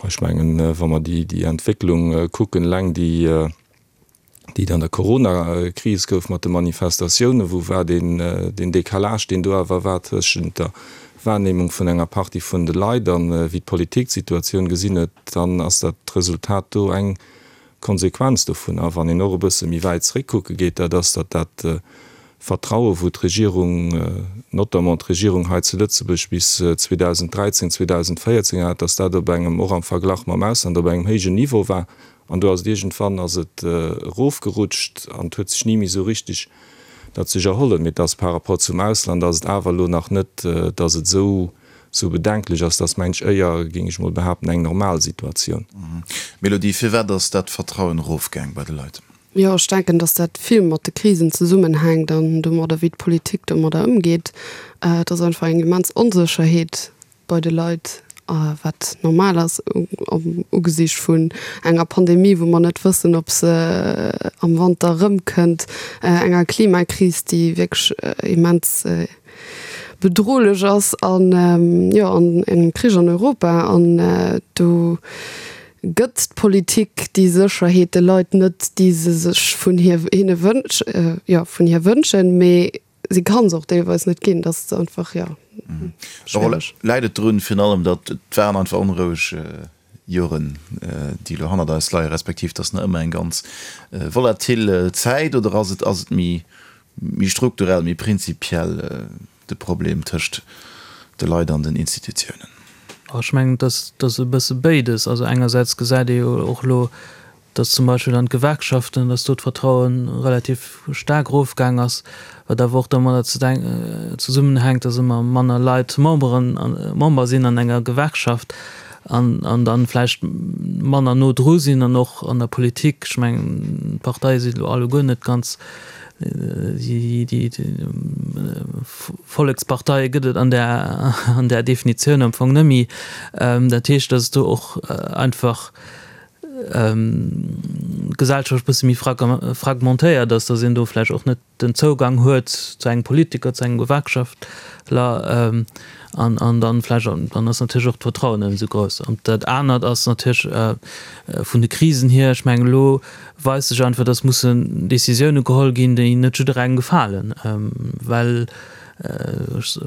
Ech mengen, wa mer déi Entwécklung kucken, eleng déi déi et an der Corona-Kris gouf mat de Manifestatiounen, wou war deen, deen Décalage, deen do awer war tëschent der Wahrnehmung vun enger Partie vun de Leit an wéi d'Politik d'Situatioun gesinn huet, dann ass dat Resultat do eng Konsequenz dovun. A wann een och e bësse méi wäit zréckkucke geet, dat ass, datt dat Vertraue wou d'Regierung, notamment d'Regierung hei zu Lëtzebuerg bis 2013, 2014 hat, datt dat op engem, och am Verglach mam Ausland, op engem héijen Niveau war. An do ass et iergendwann ass et erofgerutscht an et huet sech ni méi esou richtig dat sech erhollen. Mee et ass par rapport zum Ausland ass et awer elo nach net, datt et esou esou bedenklech ass. Dat ass mensch éier, géing ech mol behaapten, eng normal Situatioun. Mélodie, firwat ass dat Vertrauen erofgaang bei de Leit? Jo, ech denken, datt dat vill mat de Krisen zesummenhänkt an domadder, wéi d'Politik domadder ëmgeet. Et ass einfach eng immens Onsécherheet bei de Leit, wat normal ass am Ugesicht vun enger Pandemie, wou mer net wëssen, ob se am Wanter erëmkënnt, enger Klimakris, déi wierklech immens bedrohlech ass an, jo, an engem Krich an Europa. An do gëtt d'Politik déi Sécherheet de Leit net, déi se sech vun hir, hinne wënsch, jo, vun hir wënschen. Mee Si kann se och deelweis net ginn, dat ass einfach, jo, schwiereg. Läit et drun, virun allem, datt et waren einfach onroueg Joren, déi elo hannert eis leien, respektiv datt nach ëmmer eng ganz volatil Zäit, oder ass et, ass et méi, méi strukturell, méi prinzipiell de Problem tëscht de Leit an den Institutiounen? Ech mengen, et ass, et ass e bësse béides. Also engersäits gesäit ee jo och elo, dass zum Beispill an d'Gewerkschaften, dass do d'Vertraue relativ staark erofgaang ass, wat awer och domadder zesummenhänkt, dass ëmmer manner Leit Memberen, Member sinn an enger Gewerkschaft an an dann vläicht manner no dru sinn an och an der Politik. Ech mengen, d'Parteie sinn elo alleguer net ganz déi, déi Volleksparteie gëtt et an där, an där Definitioun am Fong net méi. Dat heescht, dass do och einfach d'Gesellschaft e bësse méi fragmentéiert ass, datt een do vläicht och net den Zougang huet zu engem Politiker, zu engem Gewerkschaftler an an dann vläicht, dann ass natierlech och d'Vertrauen net esou grouss. An dat anert ass natierlech vun de Krisen hier, ech mengen elo weist sech einfach, datt mussen Décisioune geholl ginn, déi net jidderengem gefalen, well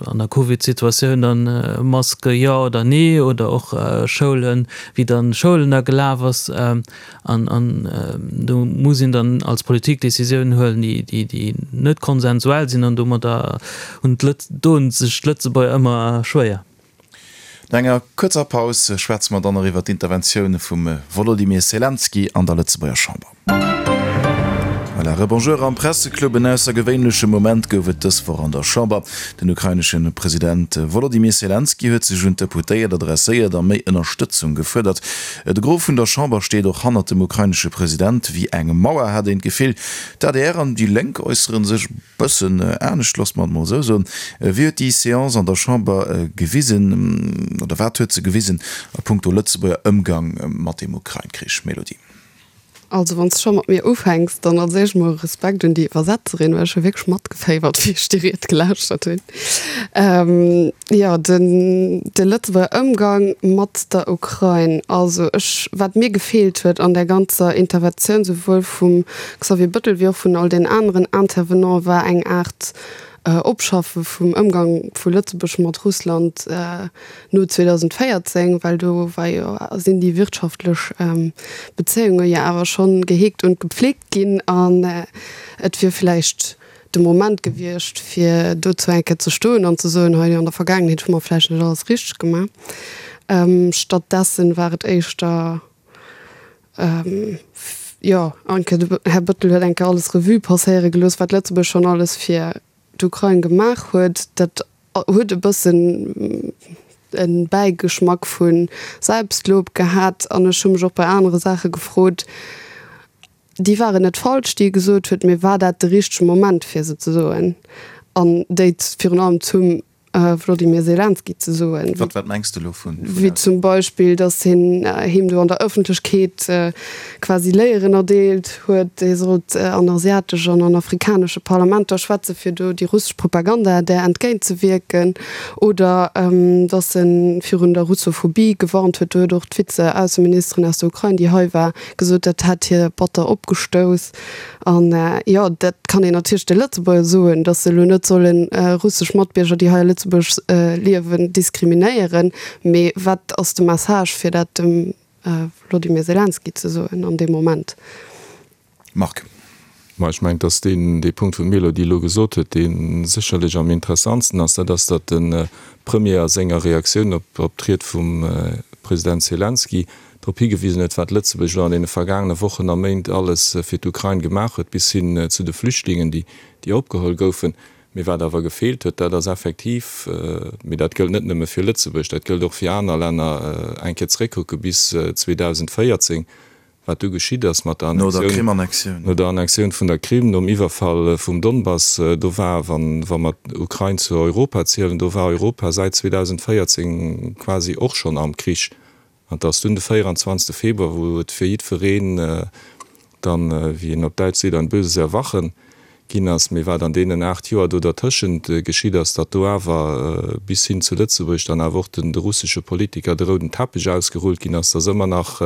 an der Covid-Situatioun dann Maske jo oder nee oder och Schoulen, wéi dann Schoulen da gelaf ass. An an do muss een dann als Politik Décisiounen huelen, déi déi déi net konsensuell sinn an domadder hunn d'Lëtz doen sech d'Lëtzebuerger ëmmer schwéier. No enger kuerzer Paus schwätze mer dann nach iwwer d'Interventioun vum Wolodymyr Selenskyj an der Lëtzebuerger Chamber. Voilà, Rebonjour am Presseclub. En aussergewéinleche Moment gouf et dës Woch an der Chamber. Den ukrainesche President Wolodymyr Selenskyj huet sech un d'Deputéiert adresséiert a méi Ënnerstëtzung gefuerdert. De Gros vun der Chamber steet och hannert dem ukrainesche President. Wéi eng Mauer, hat een d'Gefill. D'ADR an déi Lénk äussere sech Bëssen anescht, loosse mer et mol esou soen. Wéi huet déi Seance an der Chamber gewisen, oder wat huet se gewisen a punkto Lëtzebuerger Ëmgang mat dem Ukrain-Krich? Mélodie. Also wann s de scho mat mir ufänks, dann als éischt mol Respekt un déi Iwwersetzerin, well ech hu wierklech matgeféiwert, wéi ech déi Ried gelauschtert hunn. Jo, den de Lëtzebuerger Ëmgang mat der Ukrain, also ech, wat mir gefeelt huet an där ganzer Interventioun, souwuel vum Xavier Bëttel wéi och vun all den aneren Intervenante war eng Aart. Opschaffe vum Ëmgang vu Lëtzebuerg mat Russland no 2014, well do war jo, sinn déi wirtschaftlech Bezéiunge jo awer schonn geheegt und gepflegt ginn an et wier vläicht de Moment gewiescht, fir dozou eng Kéier ze stoen an ze soen, hei an der Vergaangenheet hu mer vläicht net alles richteg gemaach. Stattdessen war et éischter, jo, eng Kéier, de Här Bettel huet eng Kéier alles Revue passéiere gelooss, wat Lëtzebuerg schonn alles fir d'Ukrain gemaach huet. Dat huet e bëssen e Bäigeschmack vu Selbstlob gehat. An ech hu mech och bei anere Saache gefrot, déi waren net falsch, déi e gesot huet, mee war dat de richtege Moment, fir se ze soen an déi virun allem zum Wlodimir Selenski ze soen? Wat, wat mengs de elo vun? Wéi zum Beispill, datt hien him do an der Ëffentlechkeet quasi Léieren erdeelt huet, hie sollt an asiatesch an an afrikanesche Parlamenter schwätzen, fir do déi russesch Propaganda där entgéint ze wierken, oder datt e virun der Russophobie gewarnt huet. Do huet och d'Vize-Ausseministerin aus der Ukrain, déi hei war, gesot, dat hätt hie batter opgestouss. An jo, dat kann een natierlech de Lëtzebuerger soen, datt se elo net solle russesch Matbierger, déi hei a Lëtzebuerg liewen, diskriminéieren. Mee wat ass de Message, fir dat dem Wlodimir Selenski ze soen an deem Moment? Marc. Ma ech mengen, datt deen, dee Punkt, wou d'Mélodie elo gesot huet, dee sécherlech am interessantsten ass, dat ass, datt de Premier a senger Reaktioun op, op d'Ried vum President Selenski drop higewisen huet, wat Lëtzebuerg elo an deene vergaangene Wochen a Méint alles fir d'Ukrain gemaach huet, bis hin zu de Flüchtlingen, déi, déi opgeholl goufen. Mee wat awer gefeelt huet, dat ass effektiv, mee dat gëllt net nëmme fir Lëtzebuerg, dat gëllt och fir aner Länner, eng Kéier zeréckkucke bis 2014, wat du geschitt ass mat der Annexioun, no der Annexioun vun der Krim, nom Iwwerfall vum Donbass. Do war, wa mer d'Ukrain zu Europa zielen, do war Europa säit 2014 quasi och schonn am Krich. An et ass dunn de 24. Februar, wou et fir jiddwereen dann, wéi een op Däitsch seet, ein böses Erwachen ginn ass. Mee wat an deenen 8 Joer do dertëschent geschitt ass, datt do awer bis hin zu Lëtzebuerg dann awer och de russesche Politiker de rouden Teppech ausgerullt ginn ass, datt ëmmer nach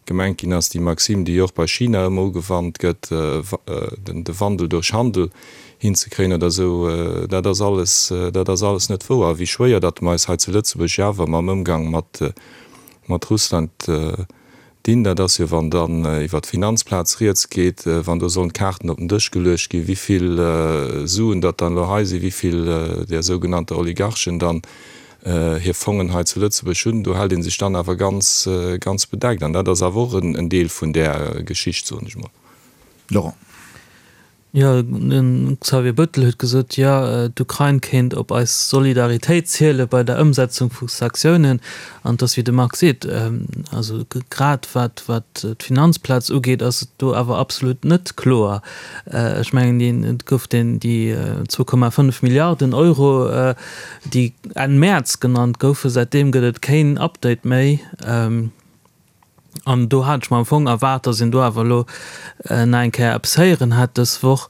gemengt ginn ass, déi Maxime, déi jo och bei China ëmmer ugewannt gëtt, de Wandel durch Handel hinzekréien oder esou, dat ass alles, dat ass alles net wouer. A wéi schwéier datt mer eis hei zu Lëtzebuerg jo awer mam Ëmgang mat, mat Russland dinn, dat ass jo, wann dann iwwert d'Finanzplaz rieds geet, wann do sollen d'Kaarten op den Dësch geluecht ginn, wéi vill Suen datt dann elo hei sinn, wéi vill där sougenannter Oligarchen dann hir Fongen hei zu Lëtzebuerg hunn, do hält ee sech dann awer ganz, ganz bedeckt. An dat ass awer och en Deel vun där Geschicht, soen ech mol. Laurent. Jo, de Xavier Bettel huet gesot, jo, d'Ukrain kéint op eis Solidaritéit ziele bei der Ëmsetzung vu Sanktiounen. An et ass, wéi de Marc seet, also grad wat d'Finanzplaz ugeet, ass et do awer absolut net kloer. Ech mengen, et gouf déi 2,5 Milliarden Euro, déi Enn Mäerz genannt goufen. Säitdeem gëtt et keen Update méi. An do hat ech mer am Fong erwaart, dass een do awer elo nach eng Kéier eppes héieren hätt dës Woch.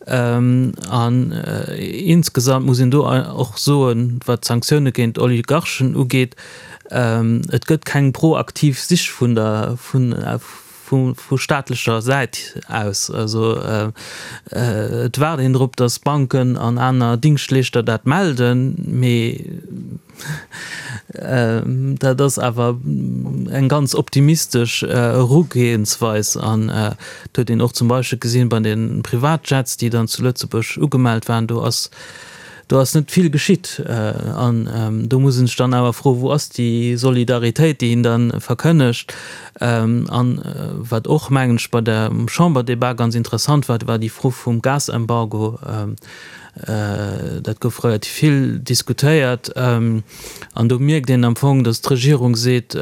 An insgesamt muss een do och soen, wat d'Sanktioune géint Oligarchen ugeet, et gëtt keng proaktiv Sich vun der, vu staatlecher Säit aus. Also et waart een drop, dass Banken an aner Dingschtleeschter dat melden, mee Dat ass awer eng ganz optimistesch Erugehensweis an et huet een och zum Beispill gesinn bei de Privatjets, déi dann zu Lëtzebuerg ugemellt waren, do ass do ass net vill geschitt. An do muss een sech dann awer froen, wou ass déi Solidaritéit, déi een da verkënnegt? An wat och, mengen ech, bei der Chamberdebat ganz interessant war, war déi Fro vum Gasembargo. Dat gouf relativ vill diskutéiert. An do mierkt een am Fong, datt d'Regierung seet,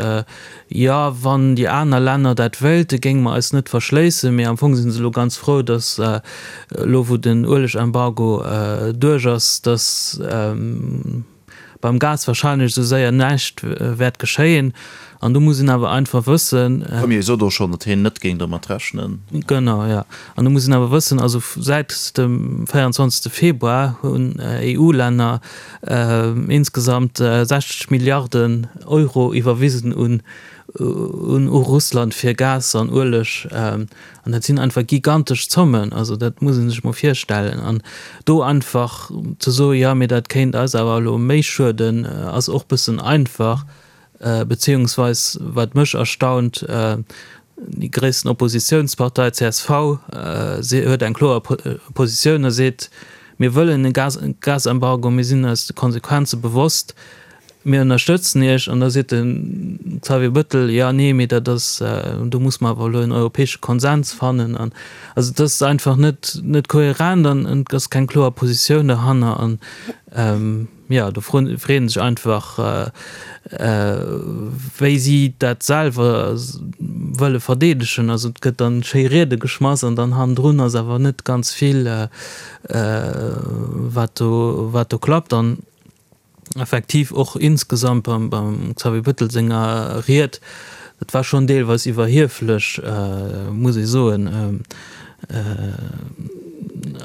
Jo, wann déi aner Länner dat wéilten, géinge mer eis net verschléissen. Mee am Fong si se elo ganz frou, datt elo wou den Uelegembargo duerch ass, datt, Beim Gas wahrscheinlech esou séier näischt wäert geschéien. An do muss een awer einfach wëssen. De Premier sot och schonn, datt hien net géing domat rechnen. Genau, jo. An do muss een awer wëssen, also säit dem 24. Februar hunn EU-Länner insgesamt 60 Milliarden Euro iwwerwisen un. un u Russland fir Gas an Ueleg. An dat sinn einfach gigantesch Zommen. Also dat muss ee sech mol virstellen. An do einfach ze soen, jo mee dat kéint eis awer elo méi schueden, ass och bëssen einfach. Beziehungsweis wat mech erstaunt, déi gréissten Oppositiounspartei csv huet eng kloer Positioun a seet, mir wëllen e Gasembargo, mir sinn eis de Konsequenze bewosst, mir ënnerstëtzen Iech. An da seet de Xavier Bettel, jo nee, mee dat ass, do muss mer awer elo en europäesche Konsens fannen. An also et ass einfach net net kohärent an et ass keng kloer Positioun derhanner. An Jo, do freet sech einfach, wéi si dat selwer wëlle verdeedegen. Also et gëtt dann schéi Riede geschmass an dann hannendrun ass awer net ganz vill, wat do, wat do klappt. An effektiv och insgesamt beim, beim Xavier Bettel senger Ried, dat war schonn deelweis iwwerhieflech, muss ee soen.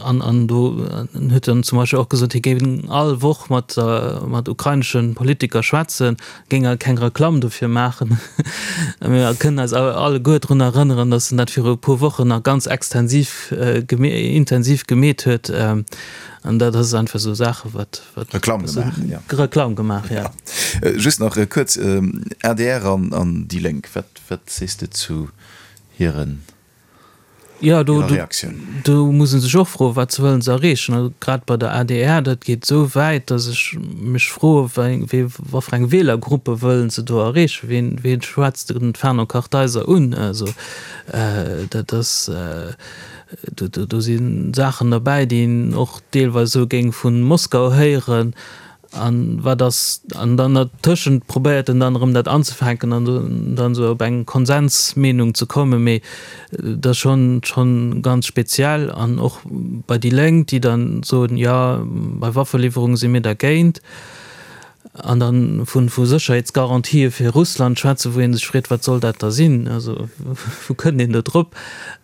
An an do huet en zum Beispill och gesot, hie géing all Woch mat mat ukrainesche Politiker schwätzen, géing awer keng Reklamm dofir maachen. Mir kënnen eis awer alleguer drun erënneren, datt en dat viru e puer Wochen nach ganz extensiv intensiv gemeet huet. An dat ass einfach esou Saache wat wat Reklamm gemaach, jo. Reklamm gemaach, jo. Just nach kuerz, adr an an déi Lénk, wat wat sees de zu hiren Jo, do, do muss ee sech och froen, wat wëllen se erreechen? Also grad bei der adr, dat geet esou wäit, datt ech mech froe wéi, wat fir eng Wielergruppe wëllen se do erreechen? Wien, wien schwätzt den Fernand Kartheiser un? Also dat ass, do, do si Saachen derbäi, déi een och deelweis esou géing vu Moskau héieren. An wat ass, an dann dertëschent probéiert en dann erëm dat anzefänken an dann esou op eng Konsensmeenung ze kommen, mee dat ass schonn, schonn ganz speziell. An och bei déi Lénk, déi dann soen, jo, bei Waffeliwwerunge si mir dergéint, an dann vu, vu Sécherheetsgarantië fir Russland schwätzen, wou ee sech freet, wat soll dat da sinn, also wou kënnt een do drop?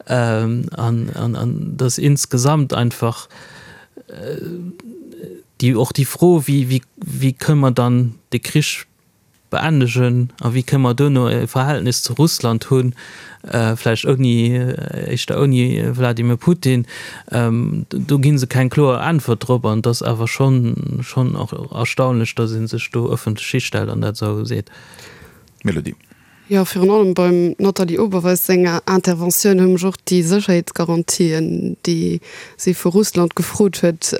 An, an, an dass insgesamt einfach déi, och déi Fro, wéi, wéi, wéi kënne mer dann de Krich beendegen a wéi kënne mer duerno e Verhältnis zu Russland hunn, vläicht ouni, éischter ouni Wladimir Putin, do gi se keng kloer Äntwert drop. An et ass awer schonn, schonn och erstaunlech, datt ee sech do ëffentlech histellt an dat esou seet. Mélodie. Jo, virun allem beim Nathalie Oberweis senger Interventioun hu mech och déi Sécherheetsgarantien, déi si vu Russland gefrot huet,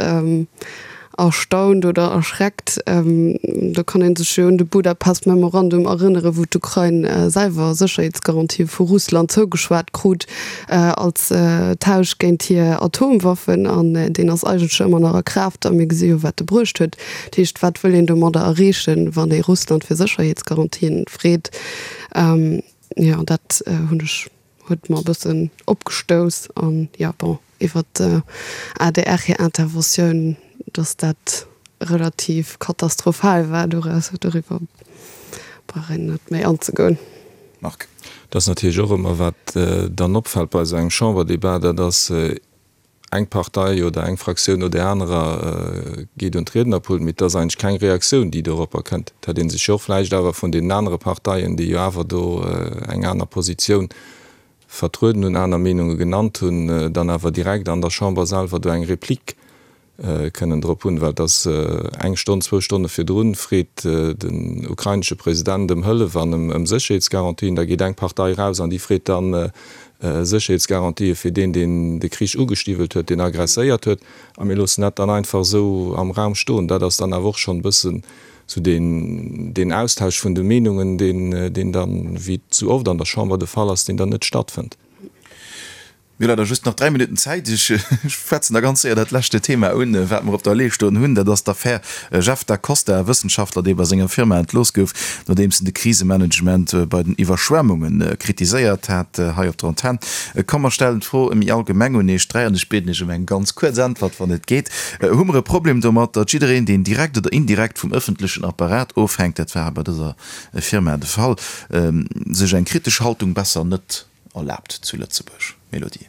erstaunt oder erschreckt. Do kann ee sech jo un de Budapest Memorandum erënneren, wou d'Ukrain selwer Sécherheetsgarantië vu Russland zougeschwat krut als Tausch géint hir Atomwaffen. An deen ass eigentlech ëmmer nach a Kraaft a mir gesi jo, wat e bruecht huet. Dat heescht, wat wëll een domadder erreechen, wann ee Russland fir Sécherheetsgarantien freet? Jo, dat hunn ech, huet mer e bëssen opgestouss. An jo, bon, iwwert d'ADR hir Interventioun, datt dat relativ katastrophal war, doraus, doriwwer brauch een net méi anzegoen. Marc. Dat ass natierlech och ëmmer, wat dann opfält bei esou engem Chamberdebat, dat ass, Eng Partei oder eng Fraktioun no där anerer geet un d'Riednerpult, mee et ass eigentlech keng Reaktioun, déi doropper kënnt. Et hätt ee sech jo och vläicht awer vun deenen anere Parteien, déi jo awer do eng aner Positioun vertrueden hunn, aner Meenunge genannt hunn, dann awer direkt an der Chamber selwer do eng Replik kënnen drop hunn, well et ass eng Stonn, zwou Stonne virdrun, freet den ukrainesche President ëm Hëllef an ëm Sécherheetsgarantien. Da geet eng Partei eraus an déi freet dann Sécherheetsgarantië fir deen, deen de Krich ugestiwwelt huet, deen aggresséiert huet. A mir loossen dat dann einfach esou am Raum stoen. Dat ass dann awer och schonn e bëssen esou deen, deen Austausch vun de Meenungen, deen, deen dann, wéi et esou oft an der Chamber de Fall ass, deen dann net stattfënnt. Mir hu leider just nach 3 Minutten Zäit. Ech schwätzen da ganz séier dat leschte Thema un, wat mer op der Lee stoen hunn. Dat ass d'Affär Jeff Da Costa, e Wëssenschaftler, dee bei senger Firma entlooss gouf, nodeems en de Krisemanagement bei den Iwwerschwemmunge kritiséiert hat. Hei op der Antenn. Komm, mer stellen d'Fro méi allgemeng un Iech 3 an ech bieden Iech ëm eng ganz kuerz Äntwert, wann et geet. Hu mer e Problem domat, datt jiddereen, deen direkt oder indirekt vum ëffentlechen Apparat ofhänkt, dat war bei dëser Firma de Fall, sech eng kritesch Haltung besser net erlaabt zu Lëtzebuerg? Mélodie.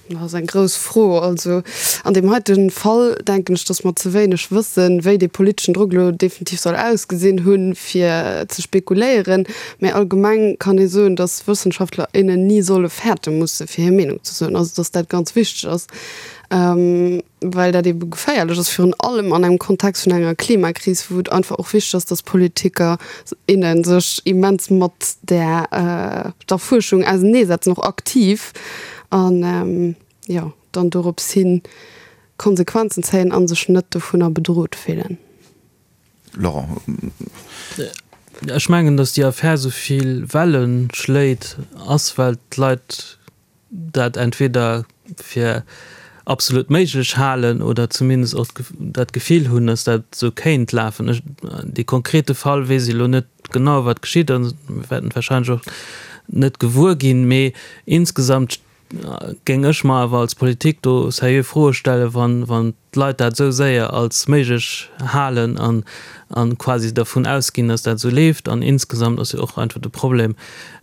Dat ass eng grouss Fro. Also an deem heite Fall denken ech, datt mer ze wéineg wëssen, wéi dee politeschen Drock elo definitiv soll ausgesinn hunn, fir ze spekuléieren. Mä allgemeng kann ee soen, datt Wëssenschaftler, innen ni solle fäerte musse fir hir Meenung ze soen. Also datt dat ganz wichteg ass, well dat eebe geféierlech ass, virun allem an engem Kontext vun enger Klimakris, wou et einfach och wichteg ass, datt Politiker, innen sech immens mat där der Fuerschung auseneesetzen, och aktiv. An jo, dann dorops hin Konsequenzen zéien a sech net dovunner bedrot fillen. Laurent. Ech mengen, datt déi Affär esou vill Welle schléit, ass well d'Leit dat entweder fir absolut méiglech halen oder zumindest och dat Gefill hunn, datt dat esou kéint lafen. Ech, dee konkrete Fall weess ech elo net genau, wat geschitt ass, mir wäerten et warscheinlech och net gewuer ginn, mee insgesamt géing ech mer awer als Politik do seriö Froe stellen, wann, wann d'Leit dat esou séier als méiglech halen an, an quasi dervun ausginn, datt dat esou leeft. An insgesamt ass jo och einfach de Problem,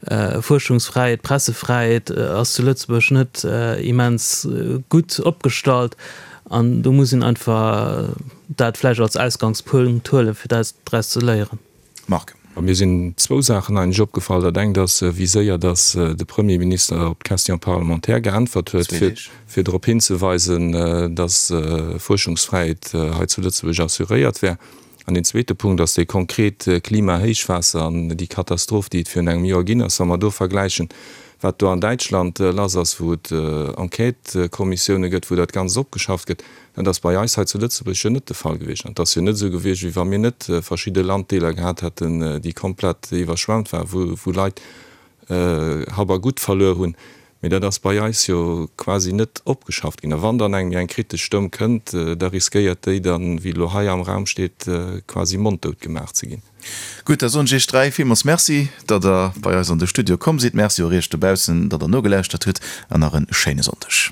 Fuerschungsfräiheet, Pressefräiheet ass zu Lëtzebuerg net immens gutt opgestallt an do muss een einfach dat vläicht als Ausgangspunkt huelen, fir dat draus ze léieren. Marc. A mir sinn zwou Saachen eigentlech opgefall. Dat engt ass, wéi séier datt de Premierminister op d'Question parlementaire geäntwert huet, fir drop hinzeweisen, datt Fuerschungsfräiheet hei zu Lëtzebuerg assuréiert wär. An deen zweete Punkt ass dee konkret Klimahéichwaasser an déi Katastroph, déi et virun engem Joer ginn ass. Wa mer do vergläichen, wat do an Däitschland lass ass, wou et Enquêtëkommissioune gëtt, wou dat Ganzt opgeschafft gëtt, Dat ass bei eis hei zu Lëtzebuerg jo net de Fall gewiescht. An et ass jo net esou gewiescht, wéi wa mir net verschidde Landdeeler gehat hätten, déi komplett iwwerschwemmt waren, wou, wou Leit Hab a Gut verluer hunn. Mee dat ass bei eis jo quasi net opgeschafft ginn. A wann dann eng méi eng kritesch Stëmm kënnt, da riskéiert déi dann, wéi elo hei am Raum steet, quasi monddout gemaach ze ginn. Gutt, da soen ech Iech 3 villmools Merci, datt Der bei eis an de Studio komm sidd. Merci och Iech dobaussen, datt Der nogelauschtert hutt an nach e schéine Sonndeg.